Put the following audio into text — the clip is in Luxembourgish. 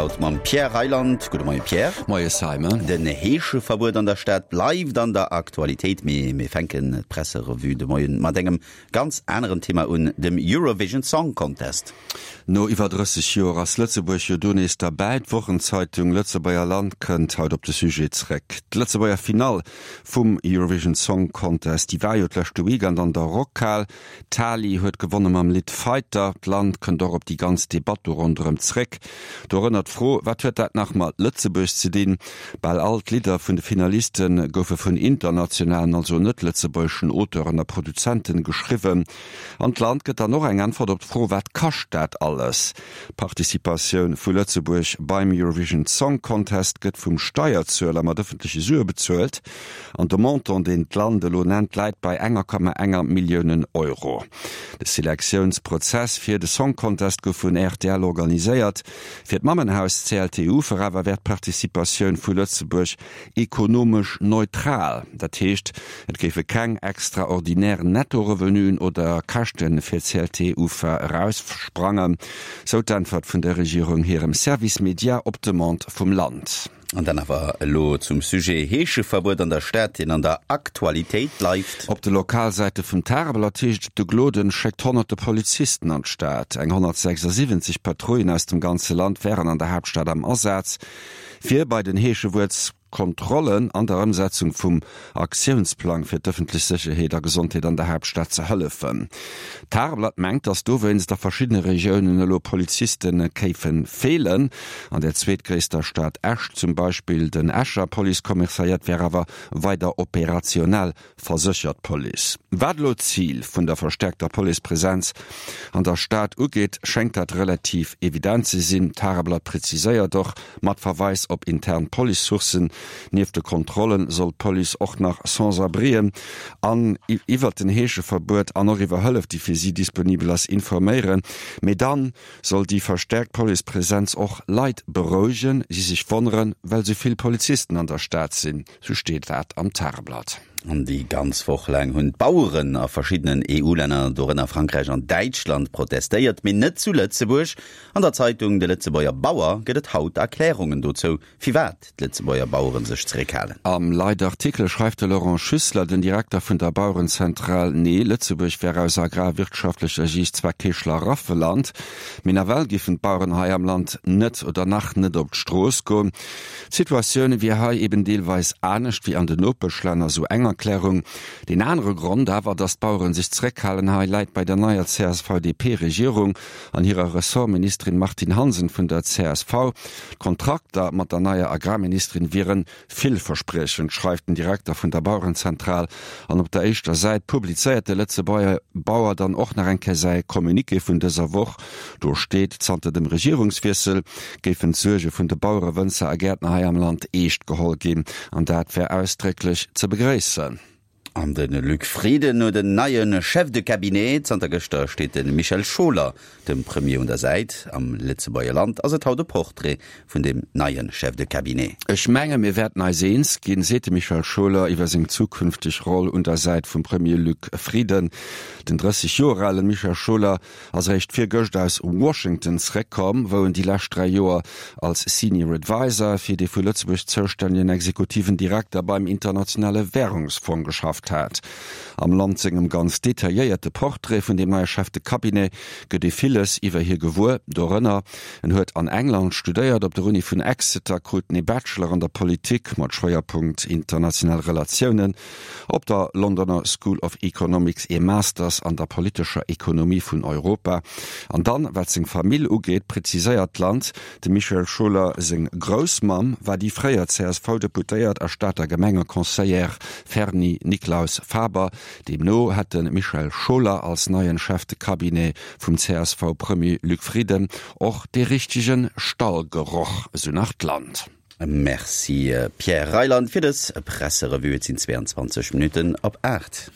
haut mam Pierre Reyland. Gudde Moie Pierre. Moie Simon. Den Heescheverbuet an der Stad bleift an der Aktualitéit, mee mir fänken d'Presserevue de Moien mat engem ganz aneren Thema un, dem Eurovision Song Contest. No iwwer 30 Joer ass Lëtzebuerg jo do nees derbäi. D'Wochenzeitung Lëtzebuerger Land kënnt haut op de Sujet zréck. D'Lëtzebuerger Finall vum Eurovision Song Contest, déi war jo d'leschte Weekend an der Rockhal. D'Tali huet gewonne mam Lidd Fighter. D'Land kënnt och op déi ganz Debatt do ronderëm zréck. Dorënner d'Fro, Wat huet dat nach mat Lëtzebuerg ze dinn? Bal all d'Lidder vun de Finaliste goufe vun internationalen, also net-lëtzebuergeschen Auteuren a Produzenten geschriwwen. An d'Land gëtt dann och eng Äntwert op d'Fro, Wat kascht dat alles? D'Participatioun vu Lëtzebuerg beim Eurovision Song Contest gëtt vum Steierzueler mat ëffentleche Sue bezuelt. An de Montant, deen d'Land elo nennt, läit bei enger Komma enger Milliounen Euro. De Selektiounsprozess fir de Song Contest gouf vun rtl organiséiert. Fir d'Mammenhaus CLTU awer wär d'Participatioun vu Lëtzebuerg Ekonomesch neutral, dat heescht, et géife keng extraordinär Netto-Revenuen oder Käschte fir d'CLT-Ufa eraussprangen, sou d'Äntwert vun der Regierung hirem Service Médias op Demande vum Land. An dann awer elo zum Sujet Heescheverbuet an der Stad, deen an der Aktualitéit bleift. Op de Lokalsäite vum Tageblatt heescht et, de Gloden schéckt honnerte Polizisten an d'Stad. Eng 176 Patrouillen aus dem ganze Land wären an der Haaptstad am Asaz. Fir bei den Heeschewuertskontrollen an der Ëmsetzung vum Aktiounsplang fir d'ëffentlech Sécherheet a Gesondheet an der Haaptstad ze hëllefen. D'Tageblatt mengt, datt dowéinst a verschiddene Regiounen elo Poliziste kéife feelen. An der zweetgréisster Stad Esch zum Beispill. Den Escher Policekommissariat wär awer weider operationell. Verséchert d'Police. Wat elo d'Zil vun der verstäerkter Policepresenz an der Stad ugeet, schéngt dat relativ evident ze sinn. D'Tageblatt präziséiert och mat Verweis op intern Police-Sourcen, Nieft de Kontrolle soll d'Police och nach Sans-abrien an iwwert den Heescheverbuet an och iwwer Hëllef, déi fir si disponibel ass, informéieren. Mee dann soll déi verstäerkt Policepresenz och Leit berouegen, déi sech wonneren, well sou vill Polizisten an der Stad sinn. Sou steet dat am Tageblatt. An déi ganz Woch laang hunn d'Baueren a verschiddenen EU-Länner, dorënner Frankräich an Däitschland, protestéiert, mee net zu Lëtzebuerg. An der Zeitung De Lëtzebuerger Bauer gëtt et haut Erklärungen dozou, firwat d'Lëtzebuerger Bauere sech zeréckhalen. Am Leitartikel schreift de Laurent Schüssler, den Direkter vun der Bauerenzentral, Nee, Lëtzebuerg wär aus agrarwirtschaftlecher Siicht zwar kee Schlaraffeland, mee nawell giffen d'Baueren hei am Land net oder nach net op d'Strooss goen. D'Situatioun wier hei eben deelweis anescht wéi an den Nopeschlänner, sou eng Erklärung. Deen anere Grond awer, datt d'Baueren sech zeréckhalen hei, läit bei der neier CSV-DP-Regierung an hirer Ressortministerin Martine Hansen vun der csv. D'Kontrakter mat der neier Agrarministerin wieren Villverspriechend, schreift den Direkter vun der Bauerenzentral. An op der éischter Säit publizéiert de Lëtzebuerger Bauer dann och nach eng Kéier säi Communiqué vun dëser Woch. Do steet, zanter dem Regierungswiessel géifen d'Suerge vun de Bauere, Wënzer a Gäertner hei am Land eescht geholl ginn. An dat wär ausdrécklech ze begréissen. An de Luc Frieden huet en neie Chef de cabinet. Zanter gëschter steet de Michel Scholer dem Premier un der Säit. Am Lëtzebuerger Land ass et haut e Portrait vun deem neie Chef de cabinet. Ech menge mir wäerten eis eens ginn, seet de Michel Scholer iwwer seng zukünfteg Roll un der Säit vum Premier Luc Frieden. Den 30 Joer ale Michel Scholer ass eréischt virgëscht aus Washington zeréckkomm, wou en déi lescht 3 Joer als Senior Adviser fir dee vu Lëtzebuerg zoustännegen exekutiven Direkter beim Internationale Wärungsfong geschafft hat. Am Land sengem ganz detailléierte Portrait vun deem neie Chef de Cabinet gëtt ee villes iwwer hie gewuer, dorënner, en huet an England studéiert, op der Uni vun Exeter krut en ee Bachelor an der Politik mat Schwéierpunkt international Relatiounen, Op der Londoner School of Economics ee Masters an der politescher Ekonomie vun Europa. An dann, wat seng Famill ugeet, präziséiert d'Land, dem Michel Schuller seng Groussmamm war déi fréier CSV-Deputéiert a Stater Gemengeconseillère Ferny Nicklaus-Faber. Deemno hätt de Michel Schuller als neien Chef de Cabinet vum CSV-Premier Luc Frieden och dee richtege Stallgeroch, esou nach d'Land. Merci Pierre Reyland fir dës Presserevue. Et sinn 22 Minutten op 8.